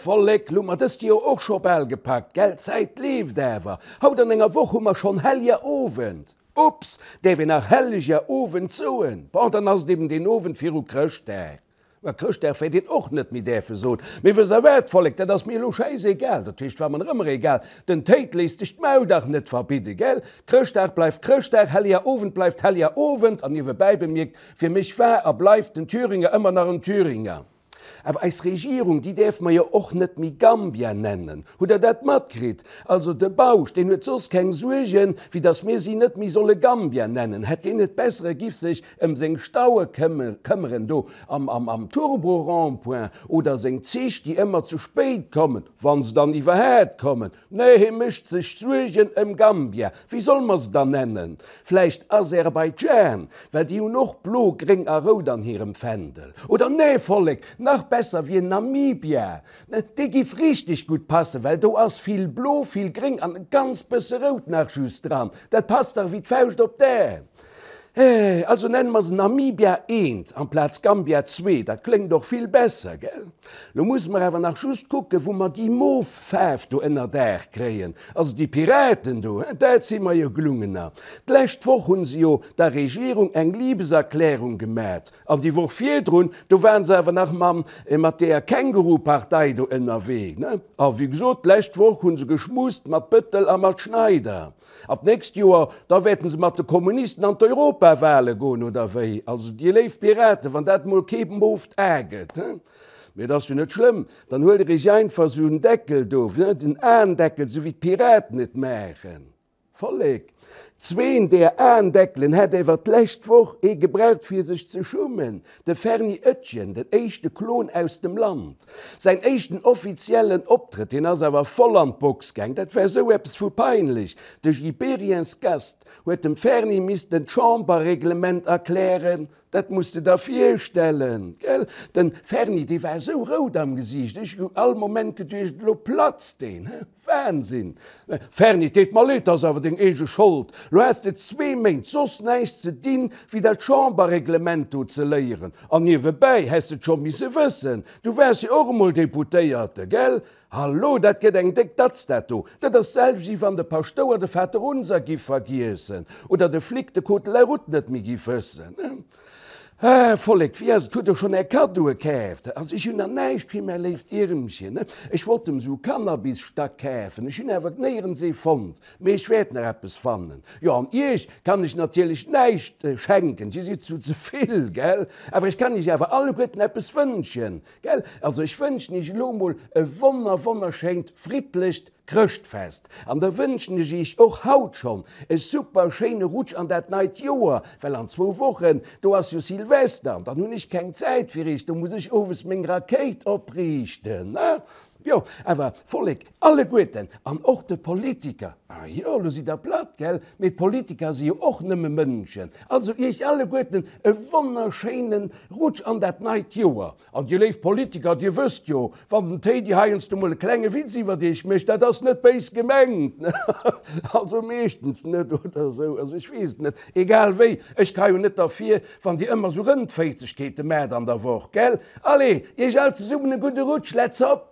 Vollek, lo hu mer dëst Joer och scho bal gepackt, gell? D'Zäit leeft awer. Haut an enger Woch hu mer schonn Helliger Owend. Ups, däerf een nach Helleger Owend soen? Bon, dann ass et eben deen Owend viru Chrëschtdag. Mä Chrëschtdag wäert een och net méi däerfe soen. Mee wësst der wat, Vollek, dat ass mir elo schäisegal, dat heescht, war mer nach ëmmer egal, den Théid léisst sech d'Maul dach net verbidden, gell? Chrëschtdag bleift Chrëschtdag, Helleger Owend bleift Helleger Owend, an niewebäi bemierkt, fir mech war a bleift den Thüringer ëmmer nach en Thüringer. Awer eis Regierung, déi däerfe mer jo och net méi Gambia nennen. Hutt Der dat matkritt? Also de Bausch, deen huet soss keng Suergen, wéi datt mir si net méi solle Gambia nennen. Hätt deen et bessere, giff sech ëm seng Staue këmmeren do am Turbo-Rond-point oder seng Zich, déi ëmmer ze spéit kommen, wa se dann iwwerhaat kommen. Nee, hie mécht sech Suergen ëm Gambia. Wéi solle mer se dann nennen? Vläicht Aserbaidschan, well déi hunn och blo, gréng a rout an hirem Fändel. Oder nee, Vollek, nach besser wier Namibia. Dee giff richteg gutt passen, well do ass vill blo, vill gréng an e ganz bësse rout nach just dran. Dat passt dach wéi d'Fauscht op d'Ae. Also nenne mer se Namibia eent amplaz Gambia zwee, dat kléngt och vill besser, gell? Lo musse mer awer nach just kucken, wou mer déi mof Faarf do ënnerdaach kréien. Also déi Piraten do, he, dat si mer jo gelungener. D'lescht Woch hunn se jo der Regierung eng Liebeserklärung gemat, an déi Woch virdrun, do waren se awer nach mam, mat deeër Känguru-Partei do ënnerwee, ne? A wéi gesot, d'lescht Woch hunn se geschmust mat Bëttel a mat Schneider. An d'nächst Joer, da wäerten se mat de Kommunisten an d'Europawale goen, oder wéi? Also, dir léif Piraten, wann dat mol kee mooft A gëtt, he? Mee et ass jo net schlëmm, dann huelt der iech einfach esou en Deckel do, den Aendeckel, esou wéi d'Piraten et maachen. Vollek, zween deer Aendeckelen hätt ewer d'lescht Woch ee gebraucht fir sech ze schummen, De Ferny Oetjen, den éischte Klon aus dem Land. Säin éischten offiziellen Optrëtt, hien ass awer voll an d'Box gaang, dat war esou eppes vu peinlech. De Gibériyens Gast huet dem Ferny missten d'Chamberreglement erklären, dat muss de der virstellen, gell? Den Ferny, dee war esou rout am Gesiicht, ech hu all Moment geduecht, elo platzt deen, he? Wahnsinn! Ferni, et deet mer leed, 't ass awer deng eege Schold. Lo has de zwee Méint soss näischt ze dinn, wéi dat Chamberreglement do ze léieren. An niewebäi häss de et scho misse wëssen, du waars jo och emol Deputéierte, gell? Hallo, dat gëtt eng déck Datz, dat do. Dat ass d'selwecht, wéi wann de Paschtouer de Vaterunser giff vergiessen oder de Flic de Code de la route net méi giff wëssen. Ah, Vollek, wéi ass et? Hutt der schonn är Kaddoe kaaft? Also ech hunn nach näischt fir mäi léift Iermchen. Ech wollt em sou Cannabisstack kafen, ech hunn awer néierens ee fonnt. Mee ech wäert nach eppes fannen. Jo, an iech kann ech natierlech näischt schenken, dir sidd zu ze vill, gell? Awer ech kann iech awer alleguerten eppes wënschen, gell? Also ech wënschen iech elo mol e wonner wonnerschéint, friddlecht Chrëschtfest an da wënschen ech iech och haut schonn e super schéine Rutsch an dat neit Joer, well an zwou Wochen, do ass jo Silvester an dann hunn ech keng Zäit fir iech, do muss ech owes meng Rakéit opriichten. Jo, awer Vollek, alleguerten an och de Politiker, ah jo, lo sidd der platt, gell, mee d'Politiker si jo och nëmme Mënschen, also iech alleguerten e wonnerschéine Rutsch an dat neit Joer. An dir léif Politiker, dir wësst jo, wann den Téidi heiansdo mol e klenge Witz iwwert iech mécht, dat ass net béis gemengt, also meeschtens net oder esou, also ech weess et net. Egal wéi, ech ka jo net derfir, wann dir ëmmer esou Rëndféizegkeete maacht an der Woch, gell? Allez, iech all zesummen e gudde Rutsch, let's hop!